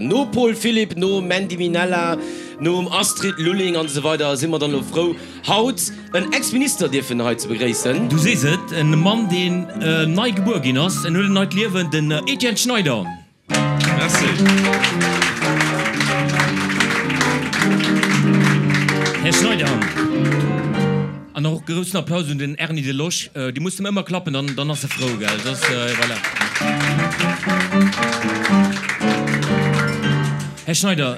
No Paul Philipp, no Mandy Minella, nom Astrid Lulling an esou weider si mer dann elo frou, haut en Ex-Minister dierfen hei ze begréissen. Du sees et, en Mann deen nei gebuer ginn ass, en huet en neit Liewen, den Etienne Schneider. Merci. Här Schneider. An och groussen Applaus un den Erny Delosch. Dir musst em ëmmer klappen, dann, dann ass e frou, gell? Dat ass, voilà. Här Schneider,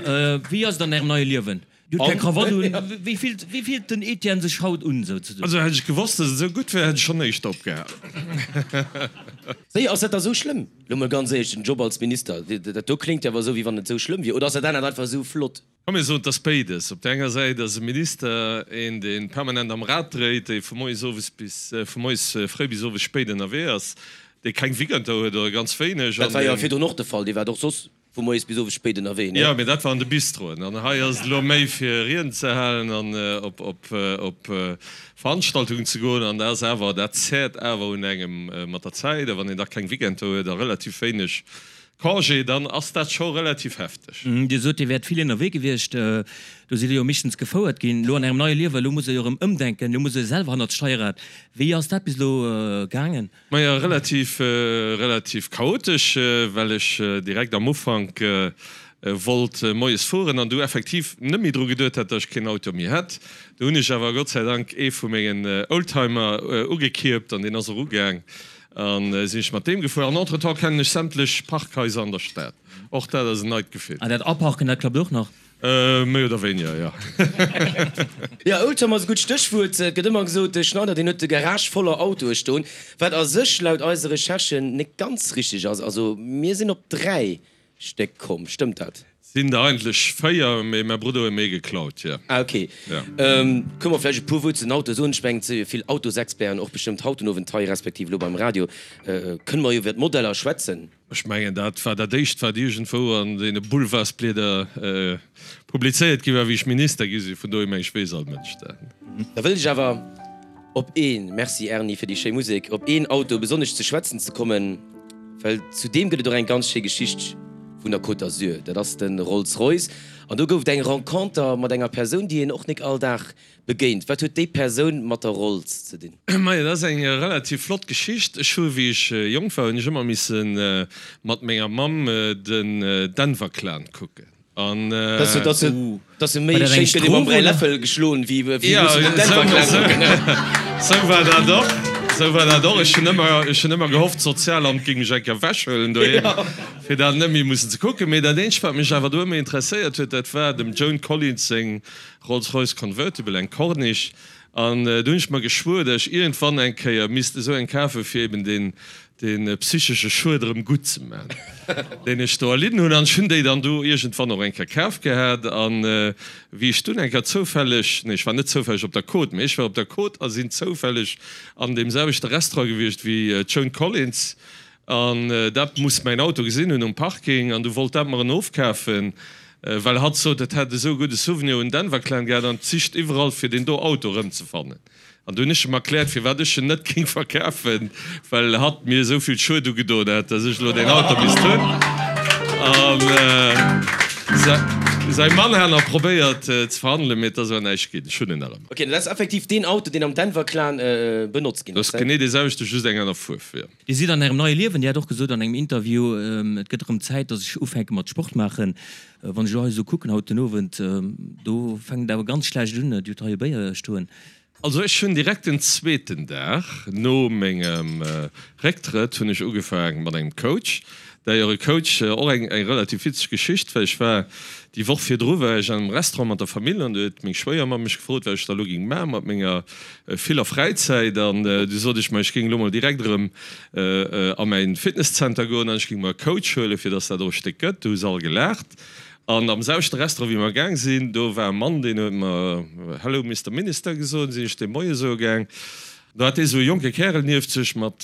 wéi ass et an Ärem neie Liewen? Dir hutt keng Krawatt un. Wéi fillt, wéi fillt den Etienne sech haut un, souzesoen? Also hätt ech gewosst, dass et esou gutt wär, hätt ech schonn éischter opgehalen. Wéi, ass dat da sou schlëmm? Lo mol ganz éierlech, den Job als Minister, dat do kléngt jo awer esou, wéi wann et esou schlëmm wier. Oder ass dat anert einfach esou flott? Komm mir soen, et ass béides. Op där enger Säit ass e Minister een, dee permanent am Rad dréit, dee vu moies owes bis, vu moies fréi bis owes spéit ënnerwee ass, dee keng Weekender huet oder ganz wéineg. Dat war jo virdrun och de Fall, Dir waart och soss vu moies bis owes spéit ënnerwee, nee? Jo, mee dat war an de Bistroen. An hei ass et elo méi fir Rieden ze halen an op op Veranstaltungen ze goen. An dat ass awer, dat zäert awer un engem mat der Zäit. A wann een da keng Weekender huet a relativ wéineg Congé, dann ass dat scho relativ hefteg. Dir sot, Dir wäert vill ënnerwee gewiescht. Do sidd Dir jo meeschtens gefouert ginn. Elo an Ärem neie Liewen, elo musst Der jo erëm ëmdenken, elo musst Der selwer hannert d'Steierrad. Wéi ass dat bis elo gaangen? Majo, relativ, relativ chaotesch, well ech direkt am Ufank wollt moies fueren an du effektiv net méi dru geduet hat, datt ech keen Auto méi hätt. Du hunn ech awer Gott sei Dank ee vu mengen Oldtimer ugekierpt an deen ass och ugaang. An sinn ech mat deem gefuer. An entretemps kennen ech sämtlech Parkhaiser an der Stad. Och dat ass en neit Gefill. An dat Aparken, dat klappt och nach? Méi oder wéiniger, jo. Jo, Oldtimer ass e gutt Stéchwuert. Et gëtt ëmmer gesot, de Schneider, deen huet de Garage voller Autoe stoen. Wat a sech laut eise Recherchen net ganz richteg ass. Also mir sinn op 3 Stéck komm, stëmmt dat? Sinn der eigentlech 4, mee mäi Brudder huet mir ee geklaut, jo. Ah ok. Kënne mer vläicht e puer Wuert zu den Autoe soen? Ech mengen, et si jo vill Autosexperten och bestëmmt haut den Owend hei, respektiv elo beim Radio. Kënne mer iwwer d'Modeller schwätzen? Ech mengen, dat war dat éischt, wat iergendwou an deene Boulevardsblieder publizéiert gi war, wéi ech Minister gi sinn. Vun dohier meng ech, weess all Mënsch dat. Da wëllt ech awer op een, Merci Erny fir déi schéi Musek, op een Auto besonnesch ze schwätzen ze kommen, well zu deem gëtt et och eng ganz schéi Geschicht vun der Côte d'Azur. Dat ass de Rolls-Royce an do gouf et eng Renconter mat enger Persoun, déi een och nik all Dag begéint. Wat huet déi Persoun mat der Rolls ze dinn? Majo, dat ass eng relativ flott Geschicht. Ech hu wéi ech jonk war, hunn ech ëmmer misse mat menger Mamm den Denver Clan kucken. An Dass se méi schéin gëtt ee mam Bräiläffel geschloen wéi mussen den Denver Clan kucken. Sou war dat och, sou war dat och. Ech hunn ëmmer, ech hunn ëmmer gehofft, d'Sozialamt géing mech eng Kéier ewechhuelen doheem, fir dat net méi mussen ze kucken. Mee dat eenzegt, wat mech awer do ëmmer interesséiert huet, dat war dem Joan Collins seng Rolls-Royce Convertible, eng Corniche. An do hunn ech mer geschwuer, datt ech iergendwann eng Kéier misst esou eng kafen, fir eben deen dee psychesche Schued erëm gutt ze man, deen ech do erlidden hunn. An ech hunn déi dann do iergendwann och eng Kéier kaf gehat. An wéi ech dunn eng Kéier zoufälleg, nee, ech war net zoufälleg op der Côte, mee ech war op der Côte a sinn zoufälleg an deem selwechte Restaurant gewiescht wéi d'Joan Collins. An dat muss mäin Auto gesinn hunn um Parking. An du wollt dat mer en ofkafen, well hatt sot, et hätt esou e gudde Souvenir un Denver Clan gehat an et sicht iwwerall fir deen do Auto erëmzefannen. An du hunn ech em erkläert, firwat ech en net géing verkafen, well hatt mir esou vill Schued ugedoen hätt, dass ech elo deen Auto misst hunn. An säi Mann hat nach probéiert ze verhandelen, mee et ass awer näischt ginn. Ech hunn en nach ëmmer. Ok, dat ass effektiv deen Auto, deen am Denver Clan benotzt ginn ass. Dat ass genee dee selwechte, just eng aner Fuerf, jo. Dir sidd an Ärem neie Liewen. Dir hat och gesot an engem Interview, et gëtt erëm Zäit, dass ech ufänke mat Sport maachen. Wann ech elo hei esou kucken haut den Owend, do fänkt et awer ganz schlecht un. Dir hutt hei e Béier stoen. Also ech hunn direkt den zweeten Dag no mengem Récktrëtt hunn ech ugefaang mat engem Coach. D'ailleurs e Coach, och eng relativ witzeg Geschicht, well ech war déi Woch virdru war ech an engem Restaurant mat der Famill an do huet meng Schwéiermamm mech gefrot, wat ech da elo géing maache mat menger viller Fräizäit an du sot ech, ma ech géing elo mol direkt erëm a mäin Fitnesszenter goen an ech géing mer e Coach huelen, fir dass dat och e Stéck gëtt. Du hu se all gelaacht. An am selwechte Restaurant, wéi mer gaang sinn, do war e Mann, deen huet mer Hello Mister Minister gesot. Sinn ech deem Moie soe gaang. Do hat dee sou e jonke Kärel nieft sech mat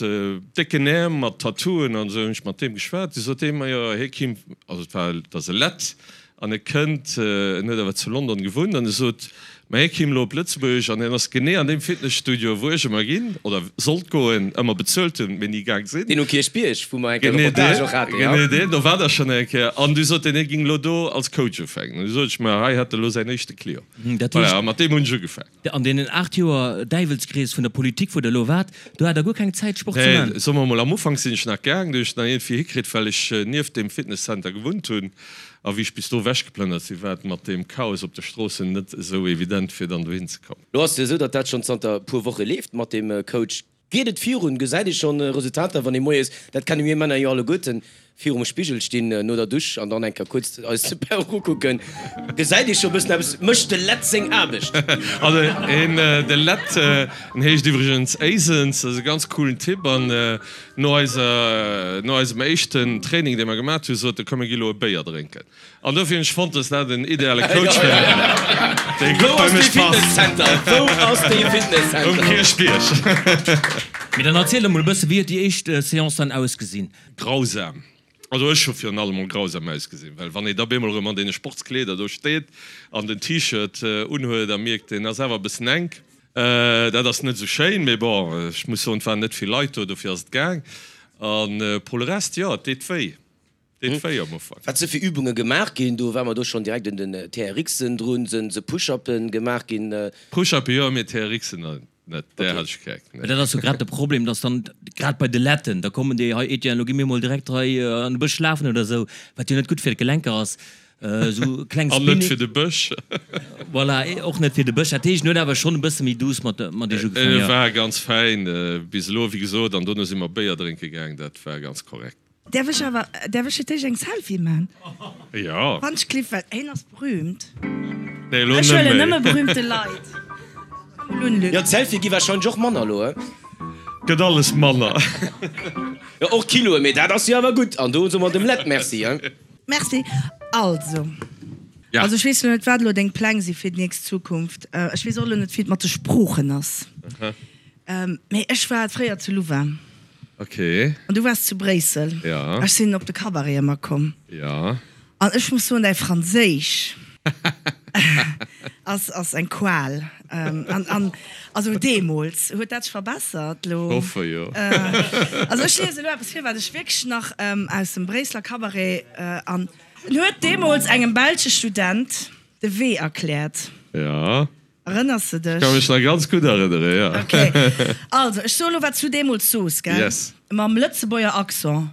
décken Äerm, mat Tattooen an esou. Hunn ech mat deem geschwat. Du sot dee mer, jo, hie kimm, also et war, et ass e Lett. An e kënnt, en huet awer zu London gewunnt, an e sot, ma hie kéim elo op Lëtzebuerg an hien ass genee an deem Fitnesstudio, wou ech ëmmer ginn, oder sollt goen, ëmmer bezuelt hunn, mee ni gaang sinn. Deen um Kierchbierg, wou mer eng Kéier Reportage och haten, jo. Genee deen, do war der schonn eng Kéier. An du sot en, hie géing elo do als Coach ufänken. An du sot ech, ma hei hätt e elo säin éischte Client. Voilà, a mat deem hunn ech ugefaangen. An deenen 8 Joer Däiwelskrees vun der Politik, wou Der elo waart, do hat Der guer keng Zäit Sport ze man? Nee, soe mer emol, am Ufank sinn ech nach gaang, do hunn ech et nach iergendwéi hikritt, well ech nieft deem Fitnesscenter gewunnt hunn. A wéi ech bis do ewechgeplënnert sinn, war et mat deem Chaos op de Stroossen net esou evident, fir dann dohin ze kommen. Lo ass et jo esou, datt dat schonn zanter e puer Woche leeft mat deem Coach. Geet et virun? Gesäit ee schonn Resultater, wann ee moies, dat kenne mir Männer jo alleguerten, virum Spigel stinn no der Dusch an dann eng Kéier kuerz eis d'Perruck ukucken? Gesäit ee scho bëssen eppes? Mécht de Lett seng Aarbecht? Also een, de Lett, en heescht iwwregens Éisens, ass e ganz coolen Typ an no eiser, no eisem éischten Training, dee mer gemat hunn, sot e, komm mir gi lo e Béier drénken. An dofir hunn ech fonnt, dass dat en ideale Coach wär, dee gutt bei mech passt. Wou ass dee Fitnesscenter? Um Kierchbierg. Mee dann erziel emol e bësse, wéi huet déi éischt Seance dann ausgesinn? Grausam. Also ech hu virun allem mol grausam ausgesinn, well wann ee da bemol erëm an deene Sportskleeder do steet an den T-Shirt unhuet a mierkt, deen ass awer e bëssen enk, dat ass net esou schéin. Mee bon, ech muss soen, et waren net vill Leit do, dofir ass et gaang. A pour le reste, jo, et deet wéi. Deet wéi am Ufank. Wat se fir Übunge gemaach ginn, do war mer do schonn direkt un den TRXen drun, se se Push-upen gemaach ginn. Push-upen jo, mee TRXen net, där hat ech keng. Mä dat ass jo grad de Problem, dass dann grad bei de Letten, da kommen déi, hei Etienne, lo gi mir mol direkt hei an de Bësch lafen oder esou, wat jo net gutt fir d'Gelenker ass, esou kleng An net fir de Bësch. Voilà, och net fir de Bësch. Dat heescht, en huet awer schonn e bësse méi douce mat mat iech ugefaangen, jo. E war ganz fäin bis elo, wéi gesot, an dono si mer Béier drénke gaang, dat war ganz korrekt. Därf ech awer, därf ech fir d'éischt eng Selfie man? Jo. Wann ech kliff, well hien ass berühmt. Nee, elo Ech net huelen méi. nëmme berühmte Leit. Komm mol un, Luc. Jo, d'Selfie gi warscheinlech och manner elo, he? Gëtt alles manner. Jo, och Kiloen, mee dat ass jo awer gutt. An do soe mer dem Lett Merci, he? Merci. Also, Ja. also ech weess elo net, wat elo deng Pläng si fir déi nächst Zukunft. Ech weess och elo net, wéi et mat de Sproochen ass. Mee ech war fréier zu Louvain. Ok. An du waars zu Bréissel. Ja. Ech sinn op de Cabaret ëmmer komm. Ja. An ech muss soen, däi Franséisch ass, ass eng Qual. An, an also deemools. Huet dat sech verbessert elo? Ech hoffe jo. Also ech liese elo eppes vir, wat ech wierklech nach aus dem Bréisseler Cabaret an. En huet deemools engem belsche Student de Wee erkläert. Ja. Erënners de dech? Ech ka mech nach ganz gutt erënnere, jo. Ok. Also, ech soe lo, wat s du deemools soos, gell? Yes. Mam Lëtzebuerger Accent,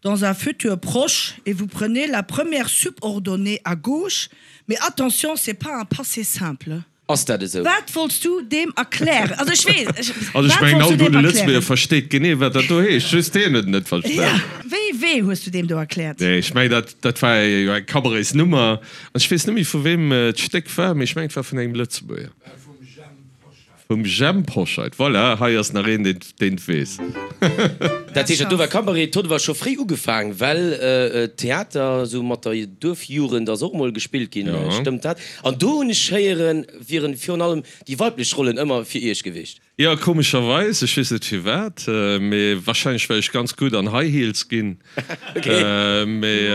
Dans un futur proche, et vous prenez la première subordonnée à gauche, mais attention, c'est pas un passé simple. Ass dat esou? Wat wollts du deem erklären? Also, ech weess, ech, Also, ech wat mengen, wollts all du deem gudde Lëtzebuerger erklären? versteet genee, wat dat do heescht, just hien huet et net verstan. Ja. Wéi Wee hues du deem do erkläert? Nee, ech mengen, dat, dat war jo eng Cabaretsnummer. An ech weess net méi vu weem d'Stéck war, mee ech mengen et war vun engem Lëtzebuerger. Vum Jhemp Hoscheit. Voilà, hei ass nach een, deen et weess. Dat heescht, dat do war Cabaret. D'huet awer scho fréi ugefaang, well Theater esou mat der Duerfjugend ass och mol gespillt ginn, stëmmt dat? An do hunn ech héieren, wieren virun allem déi weiblech Rollen ëmmer fir iech gewiescht. Jo, komescherweis, ech weess net firwat, mee wahrscheinlech well ech ganz gutt an High Heels ginn. Mee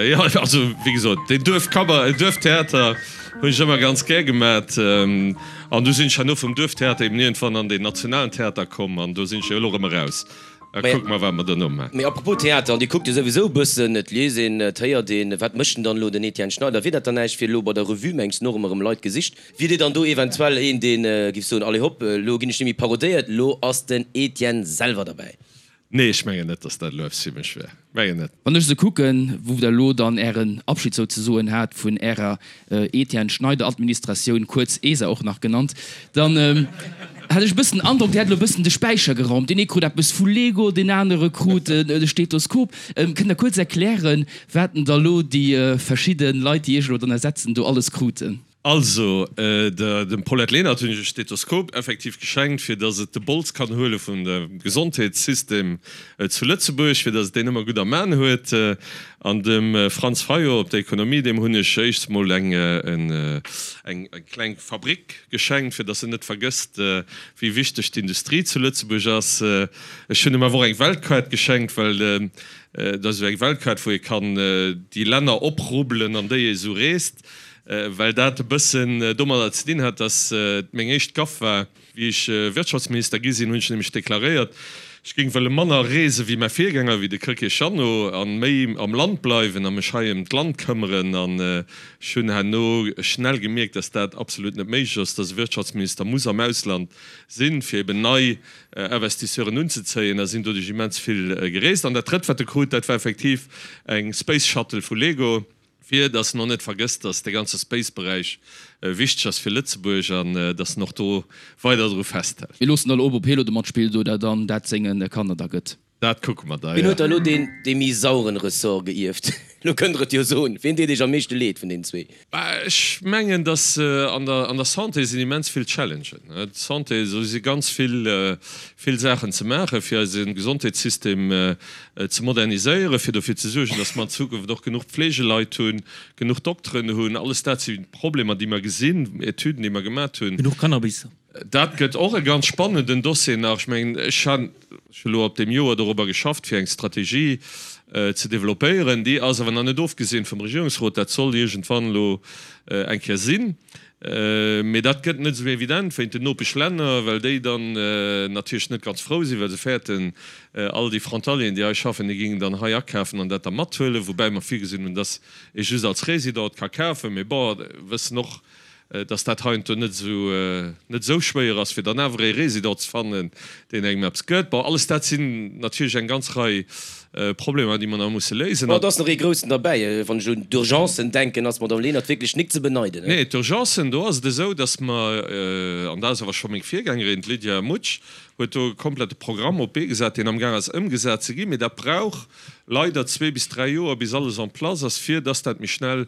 jo, also wéi gesot, deen Duerfcabaret, Duerftheater hunn ech ëmmer ganz gär gemat. An du sinn ech herno vum Duerftheater eben iergendwann an deen nationalen Theater komm an do sinn ech jo elo erëm eraus. A kucke mer, wat mer duerno maachen. Mee apropos Theater, an Dir kuckt jo souwisou e bëssen, et liest een, et héiert een, wat mécht denn dann elo den Etienne Schneider? Wier dat dann näischt fir elo bei der Revue, mengs de, och ëmmer erëm Leit gesicht? Wier Dir dann do eventuell een, dee giff soen, allez hopp, elo ginn ech net méi parodéiert, elo ass den Etienne selwer derbäi? Nee, ech mengen net, dass dat elo eppes fir mech wär. Mengen net. Wann ech esou kucken, wou Der elo dann Ären Abschied souzesoen hat vun Ärer Etienne Schneider Administratioun, kuerz ESA och nach genannt, dann hat ech e bëssen den Androck, Dir hätt elo e bëssen de Späicher geraumt. Deen ee krut eppes vu Lego, deen anere krut e Stethoskop. Kënnt Der kuerz erklären, wat denn da elo déi verschidde Leit, déi Iech elo dann ersetzen, do alles kruten? Also, dem Paulette Lenert hunn ech e Stethoskop effektiv geschenkt, fir datt et de Bols kann huele vun dem Gesondheetssystem zu Lëtzebuerg, fir datt et deen ëmmer gutt am An huet. An dem Franz Fayot op der Ekonomie, deem hunn ech éischts mol eng kleng Fabrik geschenkt, fir datt en net vergësst, wéi wichteg d'Industrie zu Lëtzebuerg ass. Ech hunn em awer och eng Weltkaart geschenkt, well dat ass esou eng Weltkaart, wou ee kann déi Länner oprubbelen, an déi ee sou reest. Well dat e bëssen domadder ze dinn hat, datt et meng éischt Gaff war. Wéi ech Wirtschaftsminister gi sinn, hunn ech nämlech deklaréiert, ech géing wëlle manner reese wéi mäi Virgänger, wéi de Krecké Jeannot, a méi am Land bleiwen a mech hei ëm d'Land këmmeren. An ech hunn herno schnell gemierkt, datt dat absolut net méiglech ass, datt e Wirtschaftsminister muss am Ausland sinn, fir eben nei Investisseuren unzezéien, a sinn doduerch immens vill gereest. An dat Drëtt, wat e krut, dat war effektiv eng Space Shuttle vu Lego. Fir dass en och net vergësst, dass de ganze Space-Beräich wichteg ass fir Lëtzebuerg an dass en och do weider dru festhält. Mir loossen elo op, ob hie lo de matspillt oder dann dat senge Kanner da gëtt. Dat kucke mer da, Wien huet da jo. elo deen dee méi sauren Ressort geierft? Elo kënnt der et jo soen. Wien deet iech am meeschte leed vun deenen zwee? Ech mengen, dass an der an der Santé sinn immens vill Challengen. D'Santé, do si ganz vill vill Saachen ze maachen, fir eise Gesondheetssystem ze moderniséieren, fir dofir ze suergen, dass mer an Zukunft och genuch Pflegeleit hunn, genuch Dokteren hunn. Alles dat si Problemer, déi mer gesinn, Etüden, déi mer gemat hunn. Genuch Cannabis. Dat gëtt och e ganz spannenden Dossier nach. Ech mengen, ech han elo op deem Joer dorobber geschafft, fir eng Strategie ze développéieren. Déi ass awer nach net ofgeseent vum Regierungsrot. Dat soll iergendwann elo eng Kéier sinn. Mee dat gëtt net esou evident wéint den Nopeschlänner, well déi dann natierlech net ganz frou sinn, well se fäerten, all déi Frontalieren, déi hei schaffen, déi géingen dann hei akafen an dat da mathuelen, woubäi mer virgesinn hunn, dass ee just als Résident ka kafen. Mee bon, wëssen och, dass dat heiansdo net esou net esou schwéier ass, fir dann awer ee Résident ze fannen, deen engem eppes gëtt. Bon, alles dat sinn natierlech eng ganz Rei Problemer, déi mer nach musse léisen. Bon, et ass nach ee groussen derbäi. Wann ech un d'Urgencen denken, ass d'Madame Lenert wierklech nik ze beneiden. Nee, d'Urgencen, do ass et esou, dass mer, an dat ass awer scho meng Virgängerin, d'Lydia Mutsch, huet do e komplette Programm op d'Bee gesat, deen amgaang ass ëmgesat ze ginn. Mee dat brauch leider zwee bis dräi Joer, bis alles en place ass, fir dass dat méi schnell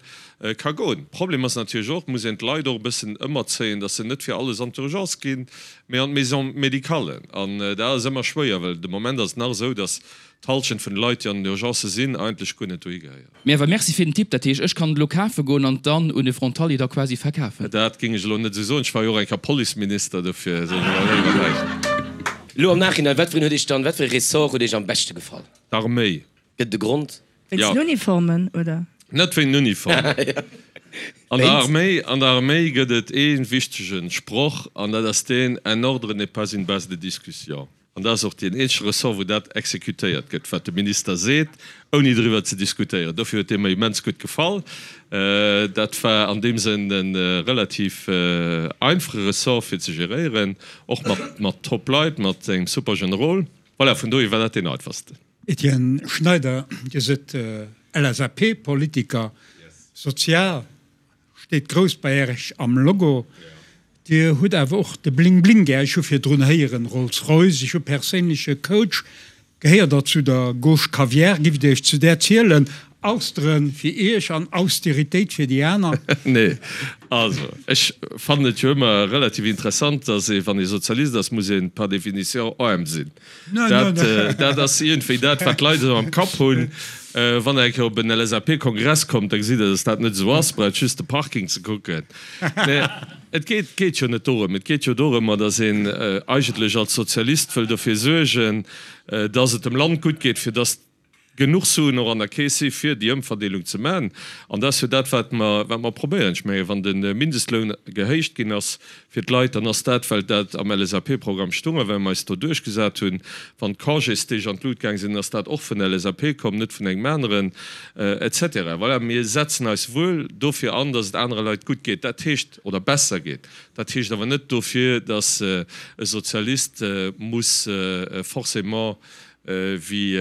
ka goen. Problem ass natierlech och, et muss een d'Leit och e bëssen ëmerzéien, dass se net fir alles an d'Urgence ginn, mee an d'Maison médicale. An dat ass ëmmer schwéier, well de Moment ass et nach esou, dass d'Halschent vun de Leit, déi an den Urgencë sinn, eigentlech guer net dohi gehéieren. Mee awer merci fir den Tipp. Dat heescht, ech kann et elo kafe goen an dann un e Frontalier da quasi verkafen? Dat géing ech elo net esou soen. Ech war jo och eng Kéier Policeminister, dofir soen ech elo léiwer näischt. Elo am Nachhinein, wat fir een huet Iech dann, wat fir e Ressort huet Iech am beschte gefall? D'Arméi. Gëtt et e Grond? Wéinst den Uniformen, oder? Net wéint den Uniformen. An der Arméi, an der Arméi gëtt et ee wichtege Sproch, an dat ass deen, Un ordre n'est pas une base de discussion. An dat ass och deen eenzege Ressort, wou dat exekutéiert gëtt, wat de Minister seet, ouni driwwer ze diskutéieren. Dofir huet dee mer immens gutt gefall. Dat war an deem Sënn e relativ einfache Ressort fir ze geréieren, och mat, mat top Leit, mat engem super Generol. Voilà, vun dohier war dat deen einfachsten. Etienne Schneider, Dir sidd LSAP-Politiker, sozial steet grouss bei Iech am Logo. Dir hutt awer och de Bling Bling gär. Ech hu virdrun héieren Rolls-Royce, ech hu perséinleche Coach. Gehéiert Der zu der Gauche Caviar? Giff Dir Iech zu där zielen? Austeren fir Iech an Austeritéit fir déi aner? Nee, also ech fannen et jo ëmmer relativ interessant, datt ee wann ee Sozialist ass, muss een par définition aarm sinn. Dat, dat ass iergendwéi dat, wat d'Leit esou am Kapp hunn. Wann Der eng Kéier op en LSAP-Kongress kommt, da gesitt Der, datt dat net esou ass. Braucht just de Parking ze kucken. Mä et geet, geet jo net dorëm. Et geet jo dorëmmer, datt een eigentlech als Sozialist wëll dofir suergen, datt et dem Land gutt geet, fir datt genuch Suen och an der Keess si fir déi Ëmverdeelung ze maachen. An dat ass jo dat, wat mer, wat mer probéieren. Ech mengen, wann de Mindestloun gehéicht ginn ass fir d'Leit, dann ass dat, well dat am LSAP-Programm stung a well mer eis do duerchgesat hunn. Wann d'Congésdeeg an d'Lut gaang sinn, ass dat och vun der LSAP komm, net vun engem aneren, et cetera. Voilà, mir setzen eis wuel dofir an, dass et anere Leit gutt geet, dat heescht, oder besser geet. Dat heescht awer net dofir, dass e Sozialist muss forcément Wéi,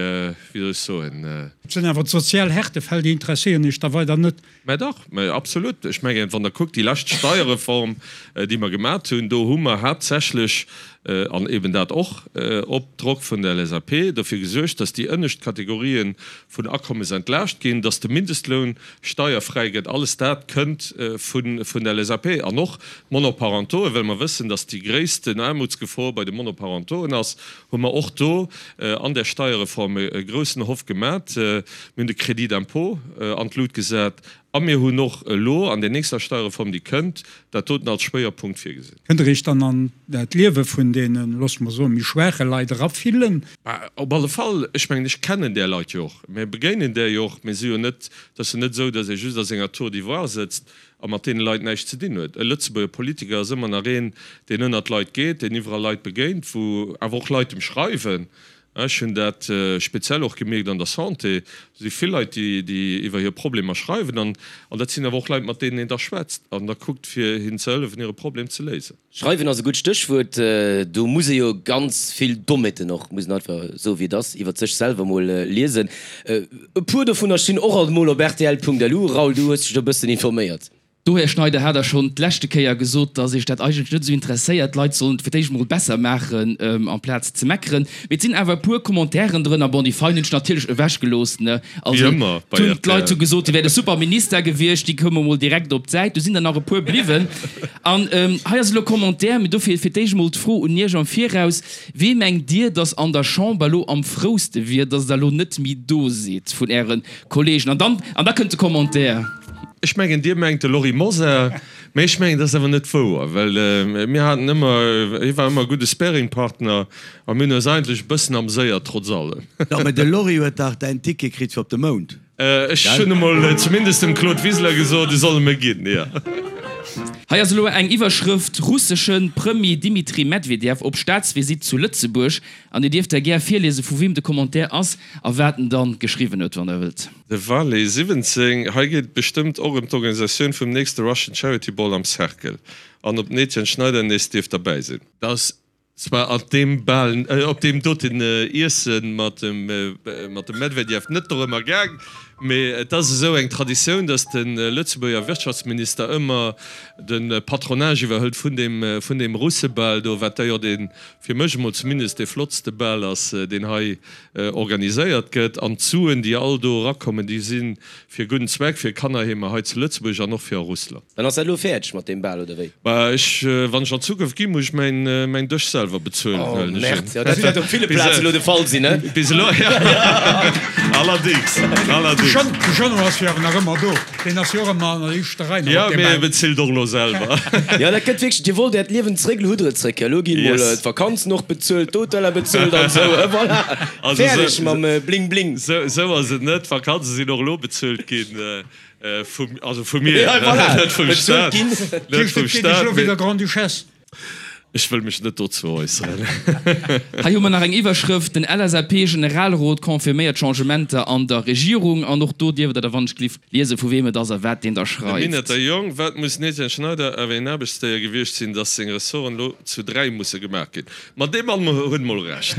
wéi soll ech soen? Et sinn awer d'sozial Härtefäll, déi interesséieren Iech da weider net? Mä dach, mä absolut. Ech mengen, wann Der kuckt, déi lescht Steierreform, déi mer gemat hunn, do hu mer haaptsächlech. an eben dat och op Drock vun der LSAP, dofir gesuergt, dass déi ënnescht Kategorien vun Akommes entlaascht ginn, dass de Mindestloun steierfräi gëtt. Alles dat kënnt vun der LSAP. An och d'Monoparentoen, well mer wëssen, dass déi gréissten Aarmutsgefor bei de Monoparentoen ass, hu mer och do an där Steierreform e groussen Hoff gemat. Mir hunn de Crédit d'impôt an d'Lut gesat a mir hunn och elo an där nächster Steierreform, déi kënnt, dat doten als Schwéierpunkt virgesinn. Kënnt Der Iech dann an d'Liewe vun deenen, loosse mer soen, méi schwaache Leit erafillen? Bah, op alle Fall. Ech mengen, ech kennen där Leit jo och. Mir begéinen där jo och. Mir si jo net, et ass jo net esou, datt ee just a senger Tour d'ivoire sëtzt a mat deene Leit näischt ze dinn huet. E Lëtzebuerger Politiker ass ëmmer nach een, deen ënnert Leit geet, deen iwwerall Leit begéint, wou awer och Leit em schreiwen. Ech hunn dat speziell och gemierkt an der Santé. Do si vill Leit, déi iwwer hir Problemer schreiwen. An dat sinn awer och Leit, mat deenen een da schwätzt an da kuckt, fir hinnen ze hëllefen, hire Problem ze léisen. Schreiwen ass e gutt Stéchwuert. Do muss ee jo ganz vill Dommheeten och, muss een einfach soe wéi et ass, iwwer sech selwer mol liesen. E puer dovunner stinn och alt mol op rtl.lu. Raoul, du hues dech do e bëssen informéiert. Do, Här Schneider, hat Der schonn d'leschte Kéier gesot, dass Iech dat eigentlech net esou interesséiert. D'Leit sollen et fir d'éischt emol besser maachen, amplaz ze meckeren. Mee et sinn awer e puer Commentairen drënner, bon, déi fein hunn ech natierlech ewechgelooss, ne? Also, et hunn d'Leit hu gesot, Dir wäert e super Minister gewiescht, déi koume mol direkt op d'Säit. Do sinn der nach e puer bliwwen. An hei ass elo e Commentaire, mee dofir fir d'éischt emol d'Fro un Iech am Viraus, Wee mengt Dir, dass an der Chamber elo am frouste wier, dass Der elo net méi do sidd vun Äre Kollegen? An dann, an da kënnt de Commentaire. Ech mengen, Dir mengt de Lory Mosar, mä ech mengen, dat ass awer net wouer, well mir haten ëmmer, hie war ëmmer e gudde Sparingpartner a mir hunn eis eigentlech e bëssen amséiert, trotz allem. Jo, mä de Lory huet dach däin Ticket kritt fir op de Mound, Ech gell? hunn emol zumindest dem Claude Wiseler gesot, e soll e mir ginn, jo. Hei ass elo eng Iwwerschrëft, Russesche Premier Dimitri Medvedev op Staatsvisitt zu Lëtzebuerg. An Dir dierft da gär virliese vu weem de Commentaire ass a wat en dann geschriwwen huet, wann Der wëllt. De Valet 17, Hei geet et bestëmmt och ëm d'Organisatioun vum nächste Russian Charity Ball am Cercle an ob den Etienne Schneider nees dierf derbäi sinn. Dat ass zwar an deem Bal, op deem doten Iessen mat dem mat dem Medvedev net dorëmmer gaang, mee et ass esou eng Traditioun, datt de Lëtzebuerger Wirtschaftsminister ëmmer de Patronage iwwerhëlt vun deem vun deem Russebal do, wat da jo dee, fir mech emol zumindest, dee flottste Bal ass, deen hei organiséiert gëtt. An d'Suen, déi all do erakommen, déi si fir e gudden Zweck, fir Kannerheemer hei zu Lëtzebuerg an och fir a Russland. Dann ass dat elo fäerdeg mat deem Bal, oder wéi? Bah, ech, wann ech an Zukunft ginn, muss ech mäin, mäin Dësch selwer bezuelen, Oh, huelen ech un. Merde, jo, dat wäert op ville Plazen elo de Fall sinn, ne? Bis elo, jo. Allerdings, allerdings. De Jeannot ass jo awer nach ëmmer do. Deen ass jo och ëmmer an der éischter Rei nach Jo, op deem mee e Bal. bezilt och elo selwer. Jo, dat gëtt wierklech, Dir wollt Äert Liewen zréck, elo hutt Der et zréck. Elo gi mol Yes. d'Vakanzen och bezuelt, d'Hoteller bezuelt an esou, voilà, Also fäerdeg sou, mam Bling Bling. sou, sou ass et net. D'Vakanze sinn och elo bezuelt ginn, vum, also vu mir, Ja, voilà, net vum bezuelt Staat, ginn. net Heescht, vum et geet Iech Staat, elo mee wéi der Grande-Duchesse? Ech wëll mech net dozou äusseren. Hei hu mer nach eng Iwwerschrëft, Den LSAP-Generalrot confirméiert Changementer an der Regierung. An och do dierft Der da wannechgelift liese vu weem et ass a wat deen da De schreift. Minetter Jong, Wat muss den Etienne Schneider awer een Aarbechtsdéier gewiescht sinn, datt seng Ressorten elo zu 3 musse gemaach ginn. Ma dee Mann huet mol Recht.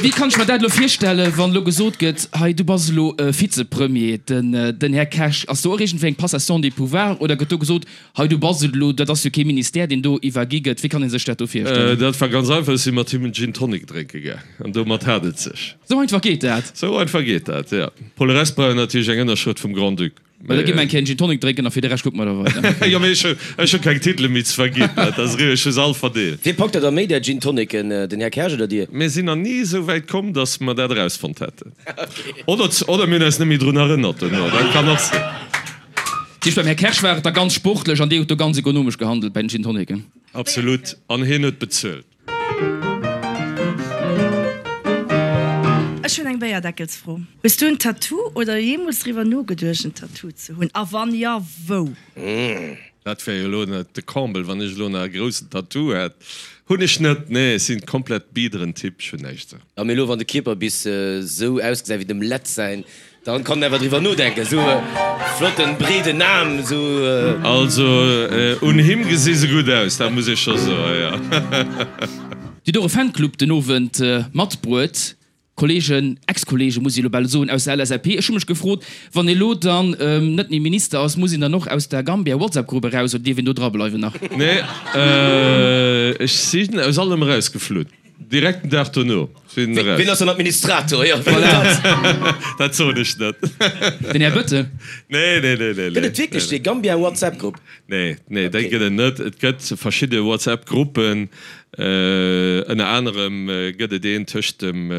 Wéi kann ech mer dat elo virstellen, wann elo gesot gëtt, hei du bass elo Vizepremier, den Här Kersch, ass do och iergendwéi eng Passation des pouvoirs oder gëtt do gesot, Hei, du bass et elo, dat ass jo kee Ministère, deen do iwwergi gëtt. Wéi kann ee sech dat do virstellen? Dat war ganz einfach, ech si mat him en Gin Tonic drénke gaang an domat hat et sech. Sou einfach geet dat? Sou einfach geet dat, jo. Pour le reste brauch een natierlech eng Ënnerschrëft vum Grand-Duc. Mä da gi mer eng Kéier en Gin Tonic drénken a fir de Rescht kucke mer da weider. Jo, mee ech hu, ech hu keng Titele méi ze verginn, dat ass eriwwer, ech hu se all verdeelt. Wee packt der da méi där Gin Tonicen, den Här Kersch oder Dir? Mir sinn nach ni esou wäit komm, datt mer dat erausfonnt hätten. Oder, oder mir hunn eis net méi drun erënnert duerno, dat kann och sinn. Dat heescht, beim Här Kersch war et da ganz sportlech an Dir hutt do ganz ekonomesch gehandelt bei den Gin Tonicen? Absolut, an hien huet bezuelt. Ech hunn eng Béierdeckelsfro. Hues du en Tattoo oder jeemools driwwer nogeduecht en Tattoo ze hunn? A wann jo, wou? Dat wär jo elo net de Comble, wann ech elo nach e groussen Tattoo hätt. Hunn ech net, nee, ech sinn komplett biederen Typ, ech hunn näischt. Jo, mee elo wann de Kierper bis sou ausgesäit wéi dem Lett säin, dann kann en awer driwwer nodenken. Sou e flotten breeden Aarm, sou. Also un him gesi se gutt aus, dat muss ee scho soen, jo. Dir hutt och e Fanclub den Owend matbruet. Kollegen, Ex-Kollegen muss ech elo bal soen, aus der LSAP. Ech hu mech gefrot, wann ee lo dann net méi Minister ass, muss een dann och aus der Gambia-WhatsApp-Grupp eraus oder dierf een do dra bleiwen nach? Nee, ech sinn aus allem erausgeflunn. Direkt den Dag dono sinn eraus. Wien ass dann Administrator? Jo, wien ass dat? Dat soen ech net. Den Här Bëttel? Nee, nee, nee, nee. Gëtt et wierklech dee Gambia-WhatsApp-Grupp? Nee, nee, déi gëtt et net. Et gëtt verschidde WhatsApp-Gruppen. Ënner anerem gëtt et een tëscht dem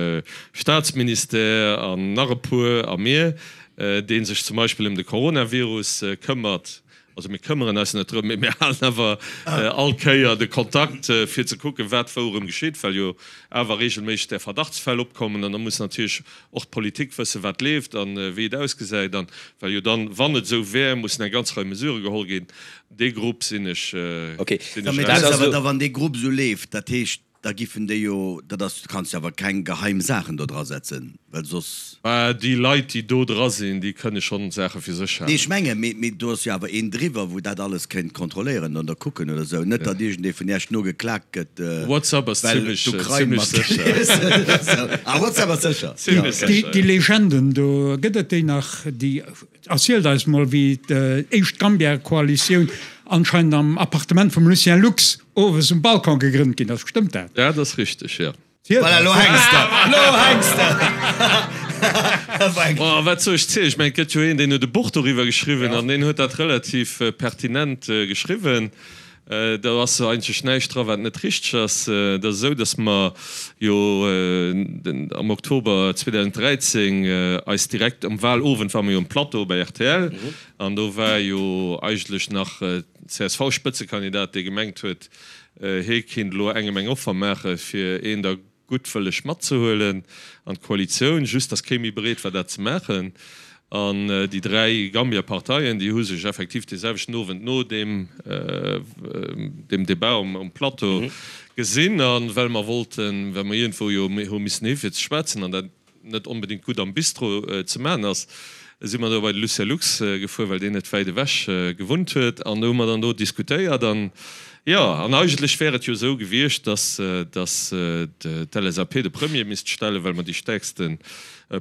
Staatsministère an nach e puer a mir, dee sech zum Beispill ëm de Coronavirus këmmert. Also mir këmmeren eis net drëm, mee mir halen awer all Kéier de Kontakt, fir ze kucken, wat wou erëm geschitt, well jo awer reegelméisseg där Verdachtsfäll opkommen. An da muss natierlech och d'Politik wëssen, wat leeft a wéi et ausgesäit. An well jo dann, wann et esou wär, mussen eng ganz Rei Mesurë geholl ginn. Dee Grupp sinn ech. Ok, mee dat ass awer da wann dee Grupp esou leeft, dat heescht da giffen déi jo, dat ass, du kanns jo awer keng geheim Saachen do dra setzen, well soss. Bah, déi Leit déi do dra sinn, déi kënne schonn Saache fir sech halen. Nee, ech menge, mee, mee do ass jo awer een driwwer, wou dat alles kéint kontrolléieren oder kucken oder esou. Net datt iergendee vun Iech no geklaakt gëtt, WhatsApp ass well zimlech, d'Ukrain zimlech sécher. Ah, WhatsApp ass sécher. Zimlech sécher, Déi Legenden do, gëtt et déi nach, déi Erzielt eis mol wéi d'éischt Gambia-Koalitioun anscheinend am Appartement vum Lucien Lux owes um Balcon gegrënnt ginn ass. Stëmmt dat? Dat ass richteg, jo. Voilà, lo hänks de! Lo hänks de! Oh, wat soll ech zielen? Ech mengen, et gëtt jo een, deen huet e Buch doriwwer geschriwwen an deen huet dat relativ pertinent geschriwwen. Do ass eigentlech näischt dra wat net richteg ass. Et ass esou, datt mer jo am Oktober 2013 eis direkt um Wahlowend ware mer jo um Plateau bei rtl an do war jo eigentlech nach csv-Spëtzekandidat, dee gemengt huet, hie kinnt elo engem eng Offer maache fir een der guttwëlleg matzehuelen an d'Koalitioun, just datt kee méi bereet war dat ze maachen. An déi 3 Gambia-Parteien, déi hu sech effektiv dee selwechten Owend no deem deem Debat um Plateau gesinn. A well mer wollten, well mer iergendwou jo hu missen hi fir ze schwätzen an dat net onbedéngt gutt am Bistro ze maachen ass, si mer do bei de Lucien Lux gefuer, well deen net wäit ewech gewunnt huet. An do hu mer dann do diskutéiert. An jo, an eigentlech wär et jo esou gewiescht, dass, dass d'LSAP de Premier misst stellen, well mer déi stäerkste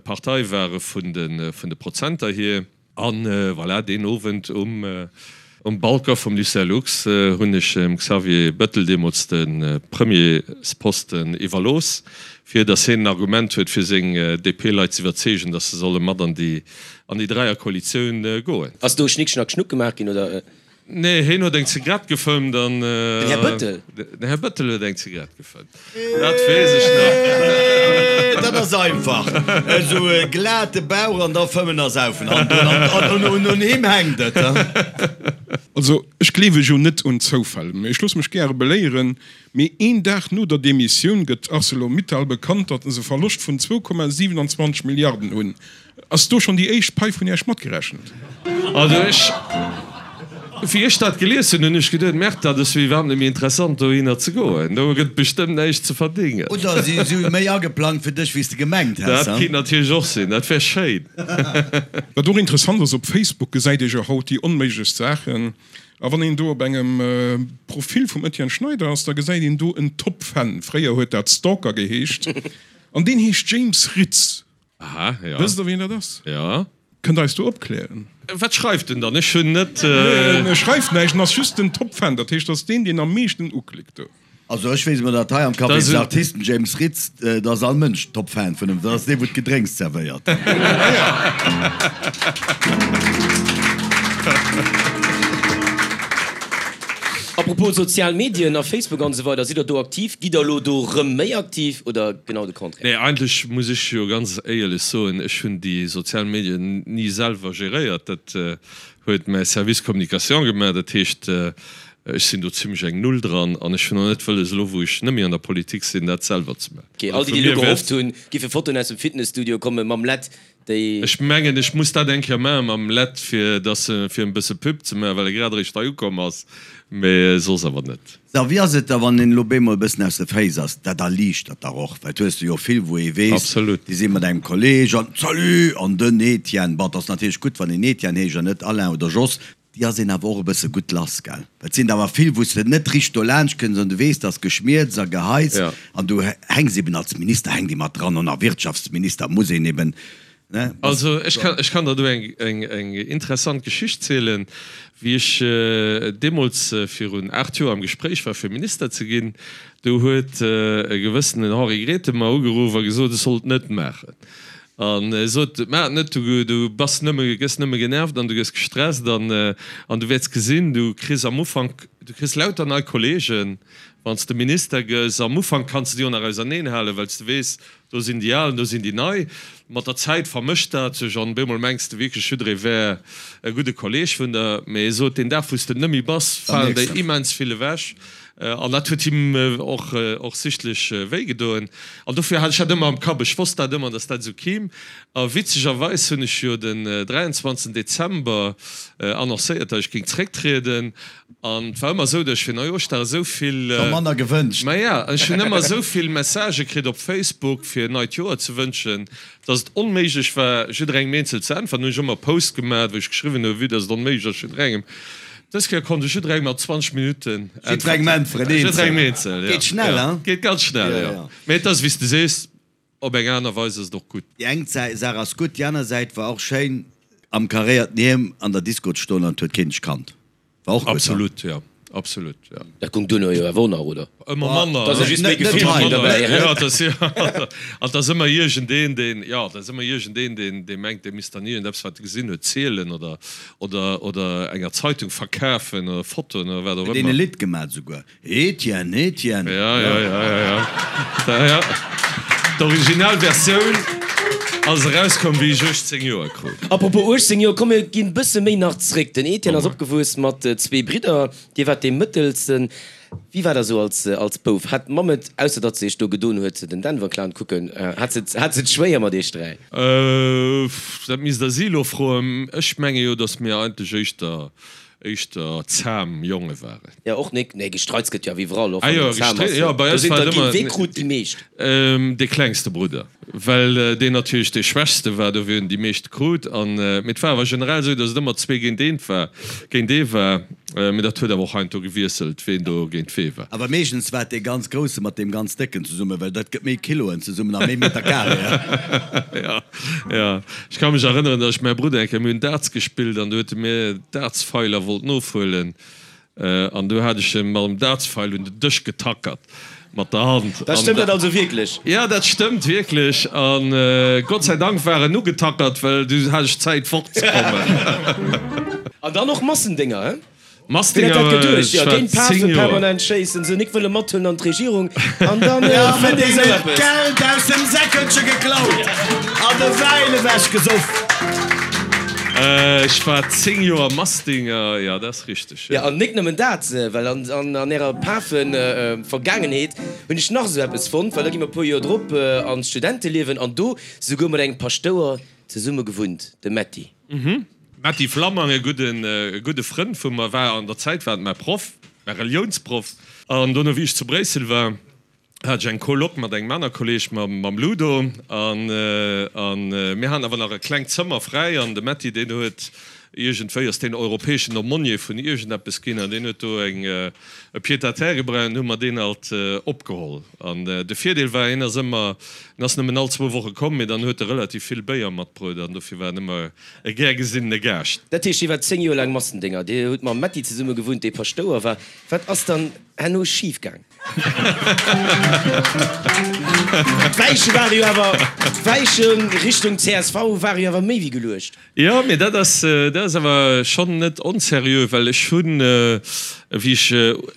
Partei ware vun de, vun de Prozenter hier. An voilà, deen Owend um um Balcon vum Lucien Lux hunn ech dem Xavier Bettel deemools de Premiersposten iwwerlooss, fir datt hien en Argument huet, fir seng DP-Leit ze iwwerzeegen, datt se solle mat an déi an déi Dräierkoalitioun goen. Ass do Schnick Schnack Schnuck gemaach ginn, oder? Nee, heen huet eng Zigarett gefëmmt an. Den Här Bëttel? Den Här Bëttel huet eng Zigarett gefëmmt. Dat weess ech nach. Dat ass einfach. Esou e glate Bauch an da fëmmen a saufen. An un him hänkt et. Also, ech gleewe jo net un Zoufäll, mee ech loosse mech gäre beléieren. Mee een Dag no der Demissioun gëtt Arcelor-Mittal bekannt, datt se e Verloscht vun 2,27 Milliarden hunn. Ass do schonn déi éischt Pai vun Iech matgerechent? Also ech, wéi ech dat gelies hunn, hunn ech geduet, Merde, dat ass jo iwwerhaapt net méi interessant dohinner ze goen, do gëtt bestëmmt näischt ze verdéngen. Oder si hu méi ageplangt fir dech, wéi s de gemengt häss. Dat kinnt natierlech och sinn, dat wär schéin. Wat och interessant ass, op Facebook gesäit ee jo haut déi onméiglechst Saachen. A wann een do op engem Profil vum Etienne Schneider ass, da gesäit een do en Top-Fan, fréier huet dat Stalker geheescht, an deen heescht James Ritz. Aha, ja. Wësst der wien dat ass? Ja. Kënnt der eis do opklären? Wat schreift en dann? Ech hunn net. Nee, en schreift näischt, en ass just den Top-Fan, dat heescht, dat ass deen, deen am meeschten uklickt do. Also ech weess emol, datt hei am Café des Artistes den James Ritz, do ass all Mënsch Top-Fan vun him, dat ass dee wou d'Gedrénks zerwéiert. Apropos sozial Medien a Facebook an esou weider, sidd der do aktiv? Gitt der elo do rëm méi aktiv oder genau de Contraire? Nee, eigentlech muss ech jo ganz éierlech soen, ech hunn déi sozial Medien ni selwer geréiert. Dat huet mäi Service Communication gemaach. Dat heescht, ech sinn do zimmlech eng Null dran an ech hunn och net wëlles, elo wou ech net méi an der Politik sinn, dat selwer ze maachen. Ok, all déi, déi elo gehofft hunn, giffe Fotoen aus dem Fitnesstudio komme mam Lett, déi. Ech mengen, ech muss dat eng Kéier maache mam Lett, fir dass e, fir en bësse Pub ze maachen, well e grad eréischt hei ukomm ass, mee soss awer net. Sou, wéi ass et da, wann een elo bemol e bëssen aus de Féiss ass? Dat erliichtert dach och, well et hues de jo vill, wou ee weess, Absolut. déi si mat engem Kolleg an, Salut! An den Etienne, bon, et ass natierlech gutt, wann een Etienne heescht an net Alain oder Jos. Déi ass een awer och e bësse gutt lass, gell? Well et sinn der awer vill, wou s de net richteg dolaanscht kënns an du weess, dass Geschmierz a Geheis an du hänks eben als Minister hänkt ee mat dran an a Wirtschaftsminister muss een eben, ne? Also ech kann, ech kann der do eng, eng, eng interessant Geschicht zielen. Wéi ech deemools virun 8 Joer am Gespréich war fir Minister ze ginn, do huet e gewëssenen Henri Grethen mer ugeruff a gesot, ech sollt et net maachen. An e sot, Maach et net, du, du bass nëmme, gëss nëmme genervt an du gëss gestresst an, an du wäerts gesinn, du kriss am Ufank, du kriss lauter nei Kollegen, wann s de Minister gëss. Am Ufank kanns de déi och nach auserneenhalen, well s de weess, do sinn déi Al an do sinn déi Nei. Mat der Zäit vermëscht dat sech an op eemol mengs de wierklech, jidderee wär e gudde Kolleeg vun der. Mee e sot, deen Dag, wou s de et net méi bass, falen der immens vill ewech. An dat huet him och och sichtlech wéi gedoen. An dofir hat ech dat ëmmer am Kapp. Ech wosst dat ëmmer, datt dat esou kimm. A witzegerweis hunn ech jo den 23. Dezember annoncéiert, datt ech géing zrécktrieden. An et war ëmmer esou, datt ech fir Neijooschdag esou vill. Scho manner gewënscht. Maja, ech hunn ëmmer esou vill Messagë kritt op Facebook, fir neit Joer ze wënschen, Dass et onméiglech war, jidderengem eenzel ze äntweren, hunn ech ëmmer e Post gemat, wou ech geschriwwen hunn, vue dass et onméiglech ass, jidderengem. Dës Kéier konnt ech jidderengem an 20 Minutten äntweren. Jidderengem äntweren, eenzel. Jidderengem eenzel, ja. Geet schnell, hein? Geet ganz schnell, jo. Mee et ass, wéi s de sees, op eng aner Weis ass et och gutt. Déi eng Saach ass gutt, déi aner Säit war och schéin, am karéierten Hiem an der Disco ze stoen an et huet keen dech kannt. War och gutt, Absolut, jo. Absolut, jo. Dat gung duerno jo awer och nach, oder? Ëmmer manner. Da si just méi Gefiller ginn derbäi, hä? Jo, dat ass, an et ass ëmmer iergendeen, deen, jo, et ass ëmmer iergendeen, deen, dee mengt, dee misst dann iergendeppes, wat e gesinn huet, zielen oder, oder, oder enger Zeitung verkafen oder Fotoen oder wat och Huet een ëmmer. e Lidd gemat esouguer. Etienne, Etienne. Ja, ja, ja, ja, ja. Da, ja. D'original Versioun ass erauskomm, wéi ech 18 Joer krut. Apropos 18 Joer, komm mir ginn bësse méi nach zréck. Den Etienne ass opgewuess mat zwee Bridder, Dir waart dee mëttelsten. Wéi war dat esou als, als Bouf? Hat d'Mamm et, ausser datt se iech do gedoen huet, den Denver Clown kucken, hat se et, hat se et schwéier mat iech dräi? Dat misst der si elo froen. Ech menge jo, datt mir eigentlech éischter éischter zahm Jonge waren. Jo, och nik. Nee, gestreits gëtt jo awer iwwerall, och Ah wann jo, een zahm gestri-, ass. jo, bei Do eis sinn war der et ginn. ëmmer Wee krut déi meescht? dee klengste Brudder, well deen natierlech dee schwächste war, dofir hunn déi meescht krut. An, mee et war awer generell esou, datt et ëmmer zwee géint eent war, géint ee war. Mee dat huet awer och heiansdo gewiesselt, ween do géint wee war. Awer meeschtens war et dee ganz Grousse mat deem ganz Décken zesummen, well dat gëtt méi Kiloen zesummen a méi Meter Carré. Jo, jo. Ech ka mech erënneren, datt ech mäi Brudder eng Kéier, mir hunn Darts gespillt an du huet e mir Dartsfeiler wollt nofhuelen an du hat ech e mam Dartsfeil un den Dësch getackert mat der Hand. Dat stëmmt dat also wierklech? Jo, dat stëmmt wierklech an Gott sei Dank war en ugetackert, well du hat ech Zäit fortzekommen. An dann och Massendénger, he? Wien hätt dat geduecht? Jo, géint d'Pafen permanent schéissen, se nik wëlle mathuelen an d'Regierung an dann fënnt ee sou eppes. D'Geld aus dem Säckelche geklaut an de Wäin ewech gesoff. Ech war 10 Joer Massdinger, jo, dat ass richteg, jo. Jo, an nik nëmmen dat, well an ärer Pafen-Vergaangenheet hunn ech nach esou eppes fonnt, well da gi mer e puer Joer drop an d'Studenteliewen an do souguer mat engem Paschtouer zesumme gewunnt, dem Metty. Metty Flammang, e gudden, e gudde Frënd vu mer, war an der Zäit war et mäi Proff, mäi Reliounsproff. An dono, wéi ech zu Bréissel war, hat ech eng Coloc mat engem aner Kolleg, mam, mam Ludo. An, an mir haten awer nach e klengt Zëmmer fräi. An de Metty, deen huet iergendwéi, ass deen europäeschen Aumônier vun iergendeppes ginn an deen huet do eng, e Pied-à-terre gebraucht an hu mer deen alt opgeholl. An de Virdeel war, hien ass ëmmer, en ass nëmmen all zwou Woche komm, mee dann huet e relativ vill Béier matbruet an dofir war en ëmmer e gär gesinnene Gaascht. Dat heescht, Dir waart 10 Joer laang Massendénger, Dir hutt mam Metty zesumme gewunnt, dee Paschtouer war. Wat ass dann herno schif gaang? D'Weiche ware jo awer, d'Weiche Richtung csv ware jo awer méi wéi geluecht. Jo, mee dat ass, dat ass awer schonn net onseriö, well ech hunn, wéi ech,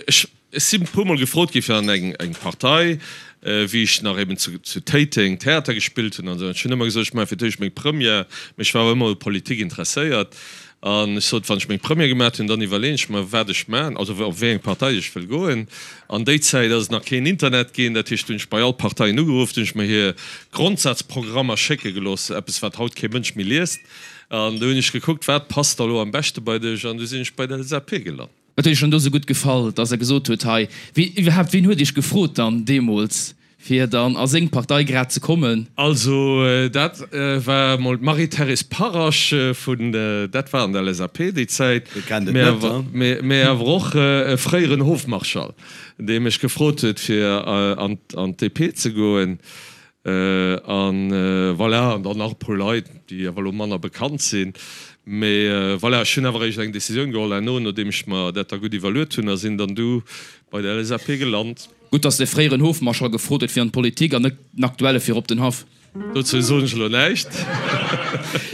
ech, Ech sinn e puer mol gefrot gi fir an eng Partei, wéi ech nach eben zu Téiteng Theater gespillt hunn an esou. An ech hunn ëmmer gesot, ech maache fir d'éischt meng Première, mee ech war awer ëmmer u Politik interesséiert. An ech sot, wann ech meng Première gemaat hunn, dann iwwerleeën ech mer, wat ech maachen, also op wéi eng Partei ech wëll goen. An déi Zäit ass et nach keen Internet ginn, dat heescht, hunn ech bei all d'Parteien ugeruff, hunn ech mer hir Grondsazprogrammer schécke gelooss, eppes wat haut kee Mënsch méi liest. An du hunn ech gekuckt, wat passt da lo am beschte bei dech, an du sinn ech bei der LSAP gelant. Wat huet Iech dann do sou gutt gefall, dass Der gesot hutt, hei, wee, iwwerhaapt, ween huet Iech gefrot dann deemools? Fir dann a seng Partei grad ze kommen. Also dat war mol d'Marie-Thérèse Parasch vun, dat war an der LSAP déi Zäit, mä awer och e fréieren Hofmarschall, dee mech gefrot huet fir an d'DP ze goen. An voilà, an dann nach e puer Leit, déi awer elo manner bekannt sinn. Mä voilà, ech hunn awer eréischt eng Decisioun geholl herno, nodeem ech mer dat da gutt iwwerluet hunn, a sinn dann du bei der LSAP gelant. Gutt, dass de fréieren Hofmarschall gefrot huet fir an d'Politik an net den aktuelle fir op den Haff. Dozou soen ech elo näischt.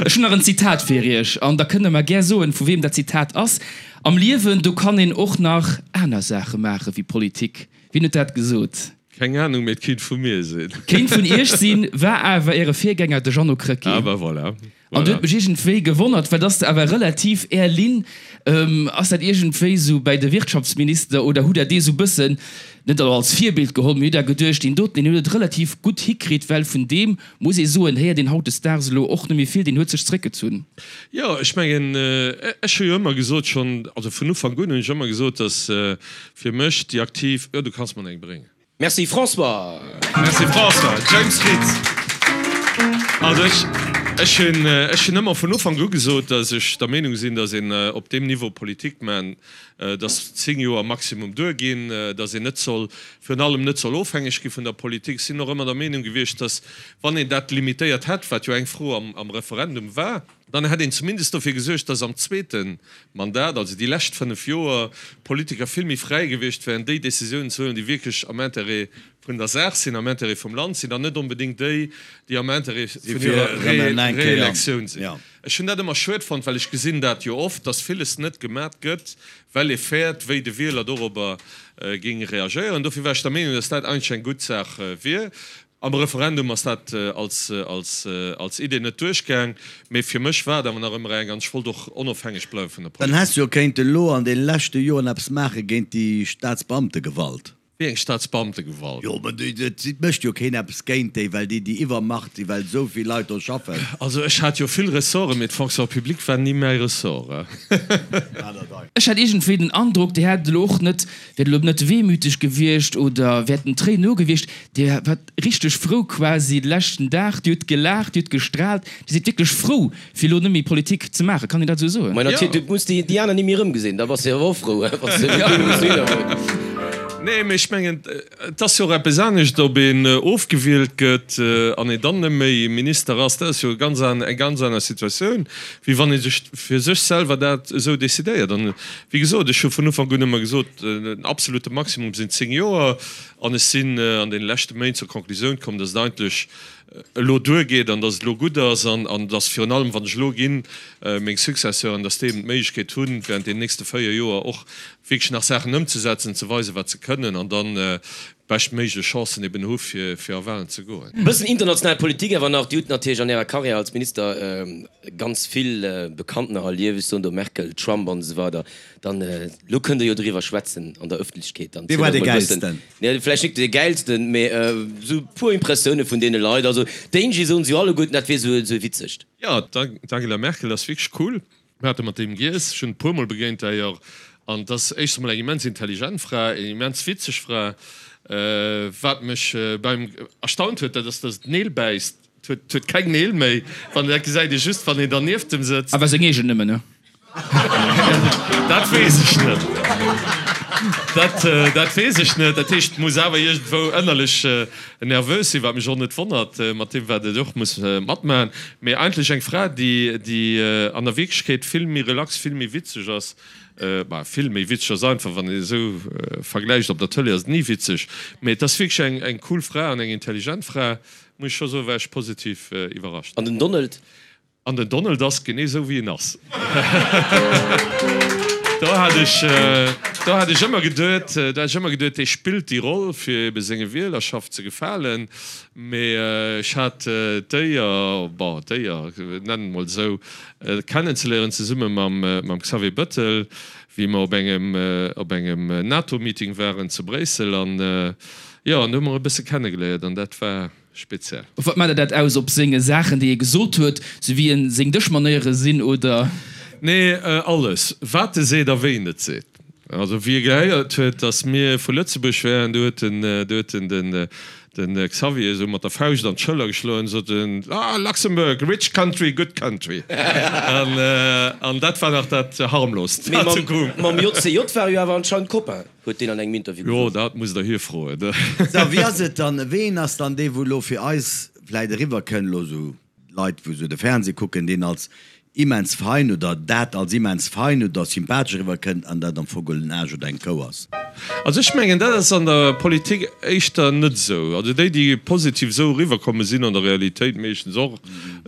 Ech hunn nach en Zitat fir Iech an da kënnt Der mer gär soen, vu weem dat Zitat ass. Am Liewen, do kann een och nach aner Saache maache wéi Politik. Wien huet dat gesot? Keng Anung, mee et kéint vu mir sinn. Kéint vun Iech sinn, war awer Äre Virgänger, de Jeannot Krecké. Ah ben voilà. An du huet mech iergendwéi gewonnert, well dass de awer relativ Är Linn, ass dat iergendwéi sou bäi de Wirtschaftsminister oder hutt Der dee sou bëssen, net elo als Virbild geholl, mee hutt Der geduecht, deen doten, deen huet et relativ gutt hikritt, well vun deem, muss ee soen, héiert een hautdesdaags elo och net méi vill, deen huet sech zréckgezunn. Jo, ech mengen, ech hu jo ëmmer gesot, schonn, also vun Ufank un hunn ech ëmmer gesot, dass fir mech déi aktiv, jo, du kanns mer eng bréngen. Merci François! Merci François. James Fritz, Also ech, ech hunn, ech hunn ëmmer vun Ufank u gesot, datt ech der Meenung sinn, datt een op deem Niveau Politik man, datt 10 Joer maximum duerginn, datt een net soll, virun allem net soll ofhängeg gi vun der Politik. Ech sinn och ëmmer der Meenung gewiescht, datt wann een dat limitéiert hätt, wat jo eng Fro am, am Referendum war, Dann hätt een zumindest dofir gesuergt, dass am zweete Mandat, also déi lescht 5 Joer, d'Politiker vill méi fräi gewiescht wären, déi Décisiounen ze huelen, déi wierklech am Intérêt vun der Saach sinn, am Intérêt vum Land sinn, an net onbedéngt déi, déi am Intérêt vun hirer Reelektioun sinn. Ech hunn dat ëmmer schued fonnt, well ech gesinn dat jo oft, dass villes net gemat gëtt, well ee fäert, wéi de Wieler dorobber géing reagéieren. Dofir war ech der Meenung, dass dat eigentlech eng gutt Saach wier. Am Referendum ass dat als als Idee net duerchgaang, mee fir mech war et awer nach ëmmer eng an ech wollt och onofhängeg bleiwe vun der Dann Politik. häss jo kéinten elo an de leschte Joren eppes maache géint déi Staatsbeamtegewalt. Wéi eng Staatsbeamtegewalt? Jo, mä et mécht jo keen eppes géint déi, well déi déi Iwwermacht si, well esou vill Leit do schaffen. Also ech hat jo vill Ressorten, mee d'Fonction publique war ni mäi Ressort. Ech hat iergendwéi den Androck, Dir hätt elo och net, wäert elo net wehmüteg gewiescht oder wäert den Tréinen nogewiescht. Dir waart richteg frou quasi de leschten Dag. Dir hutt gelaacht, Dir hutt gestraalt. Dir sidd wierklech frou, fir elo net méi Politik ze maachen. Kann een dat esou soen? Mä natierlech, du muss déi aner ni méi erëmgesinn. Da bass de awer och frou, wann s de net méi muss widderhuelen. Nee, mä ech mengen, et ass jo och eppes anescht, ob een ofgewielt gëtt an een dann net méi Minister ass. Dat ass jo ganz eng ganz aner Situatioun, wéi wann ee sech fir sech selwer dat esou decidéiert. An wéi gesot, ech hu vun Ufank un ëmmer gesot, den absolute Maximum sinn 10 Joer. An ech sinn an deene leschte Méint zur Konklusioun komm, dass et eigentlech elo duergeet an dass et elo gutt ass an dass virun allem, wann ech elo ginn, meng Successeuren, dass déi eben d'Méiglechkeet hunn, während deenen nächste 4 Joer och wierklech nach Saachen ëmzesetzen, ze weisen, wat se kënnen an dann d'beschtméiglech Chancen eben hu fir fir a Wahlen ze goen. E bëssen international Politik awer nach. Dir hutt natierlech an Ärer Karriär als Minister ganz vill Bekanntener erlieft, ech soen do Merkel, Trump an esou weider. Dann, elo kënnt Der jo driwwer schwätzen an der Ëffentlechkeet. Dann Wee war zielt dee och mol e bëssen, Gäilsten? nee, vläicht net dee Gäilsten, mee esou e puer Impressioune vun deene Leit. Also d'Angie soen se jo alleguerten, dat wier esou e witzegt. Jo, d'Angela Merkel ass wierklech cool. Mir hate mat deem giess, ech hunn e puermol begéint d'ailleurs, an et ass éischtens emol eng immens intelligent Fra, eng immens witzeg Fra. Wat mech beim erstaunt huet, dat ass, datt et Neel bäisst. Et huet keng Neel méi, wann dat gesäit ee just, wann een dernieft em sëtzt. Awer seng eegen nëmmen, ne? Dat weess ech net. Dat, dat weess ech net. Dat heescht, et muss awer iergendwou ënnerlech nervös sinn, wat mech och net wonnert, mat deem, wat et och muss matmaachen. Mee eigentlech eng Fra, déi, déi an der Wierklechkeet vill méi relax, vill méi witzeg ass. Bah, vill méi witzeg ass einfach, wann een esou vergläicht, op der Tëlee ass et ni witzeg. Mee et ass wierklech eng, eng cool Fra an eng intelligent Fra. Muss ech scho soen, war ech positiv iwwerrascht. An den Donald? An den Donald ass genee esou wéi en ass. Do hat ech, do hat ech ëmmer geduet, do hat ech ëmmer geduet, dee spillt déi Roll fir ebe senge Wielerschaft ze gefalen. Mee ech hat d'Éier, bon d'Éier, nennen et mol esou, kennenzeléieren zesumme mam, mam Xavier Bëttel, wéi mer op engem, op engem NATO-Meeting waren zu Bréissel an, Jo, an do hu mer e bësse kennegeléiert an dat war speziell. Op wat maacht Der dat aus? Op senge Saachen, déi e gesot huet, sou wéi en seng Dëschmanéiere sinn, oder? Nee, alles, wat e seet a wéi en et seet. Also wéi e gehéiert huet, datt mir vu Lëtzebuerg wären, do huet en, do huet en den. Den Xavier esou mat der Fauscht an d'Schëller geschloen, sot en, Ah, Luxembourg, rich country, good country. An, an dat war nach dat harmloost, Mee wat mam, sou koum. mam JCJ war e jo awer anscheinend Copain, huet deen an engem Interview Jo, gesot. dat musst Der hie froen. Sou, wéi ass et dann, ween ass dann dee wou elo fir eis vläit eriwwer kënn, elo sou Leit wou sou de Fernseh kucken, deen als immens fein oder dat als immens fein oder sympathesch eriwwer kënnt an dat am Fong geholl en Aarsch oder eng Kou ass? Also ech mengen dat ass an der Politik éischter net esou. Also déi déi positiv esou eriwwer kommen, sinn an der Realitéit meeschtens och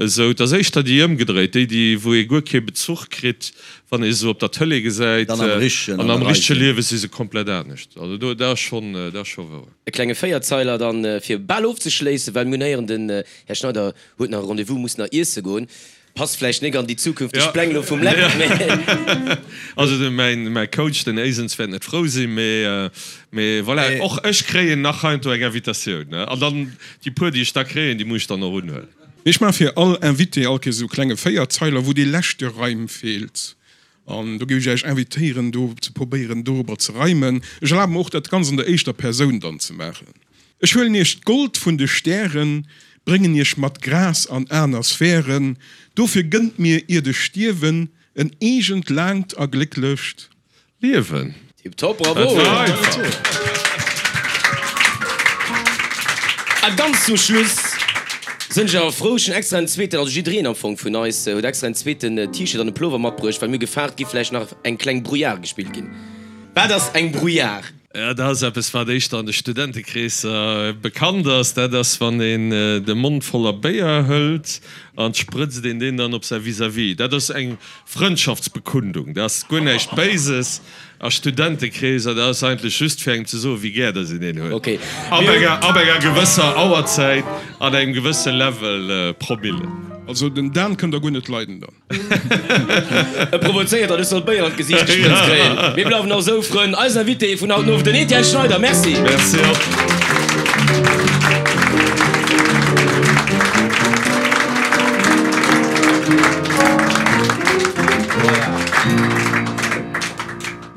esou. Et ass éischter déi ëmgedréit, déi déi wou ee guer kee Bezuch kritt wann ee se op der Tëlee gesäit, Dann am richtegen, an an am der richtege Reise. Liewe si se komplett anescht. Also do dat ass schonn, dat ass scho wouer. E klenge Véierzeiler dann fir bal ofzeschléissen, well mir hunn héieren den Här Schneider huet nach e Rendez-vous, muss nach iesse goen. Passt vläicht nik an déi zukünfteg Pläng elo vum Läb, mee. Also de mäin mäi Coach, den Eysens, wäert net frou sinn, mee mee voilà, och ech kréien nach heiansdo eng Invitatioun, ne, an dann déi puer déi ech da kréien, déi muss ech dann och unhuelen. Ech maache fir all Invité all Kéiers esou e klenge Véierzeiler, wou dee leschte Reim feelt. An do géif ech Iech invitéieren, do ze probéieren, dorobber ze reimen. Ech erlabe mer och, dat Ganzt an der éischter Persoun dann ze maachen. Ech huelen Iech d'Gold vun de Stären, bréngen Iech mat Gras an aner Sphären. Dofir gënnt mir, iert ech stierwen, en eegent, laangt a glécklecht. Liewen. Tip top, bravo! Dat war einfach. A ganz zum Schluss sënn ech awer frou, ech hunn extra en zweeten, also jiddereen am Fong vun eis huet extra en zweeten T-Shirt an e Plover matbruecht, well mir gefaart gi vläicht nach eng kleng Brouillard gespillt ginn. Wat ass eng Brouillard? Ja, dat ass eppes, wat éischter an de Studentekreesser bekannt ass. Dat ass, wann een de Mond voller Béier hëlt an sprëtzt een deen dann op säi Vis-à-vis. Dat ass eng Frëndschaftsbekundung, dat ass guer näischt Béises a Studentekreeser, dat ass eigentlech just fir engem ze soen, wéi gär dass een een huet. Okay. Ab enger, ab enger gewësser Auerzäit an engem gewësse Level Promille. Also den Dan kënnt der guer net leiden dann. E provozéiert an ech soll Béier an d'Gesiicht gesprëtzt kréien. Mir bleiwen och esou Frënn. Eisen Invité vun haut den Owend, den Etienne Schneider. Merci. Merci och.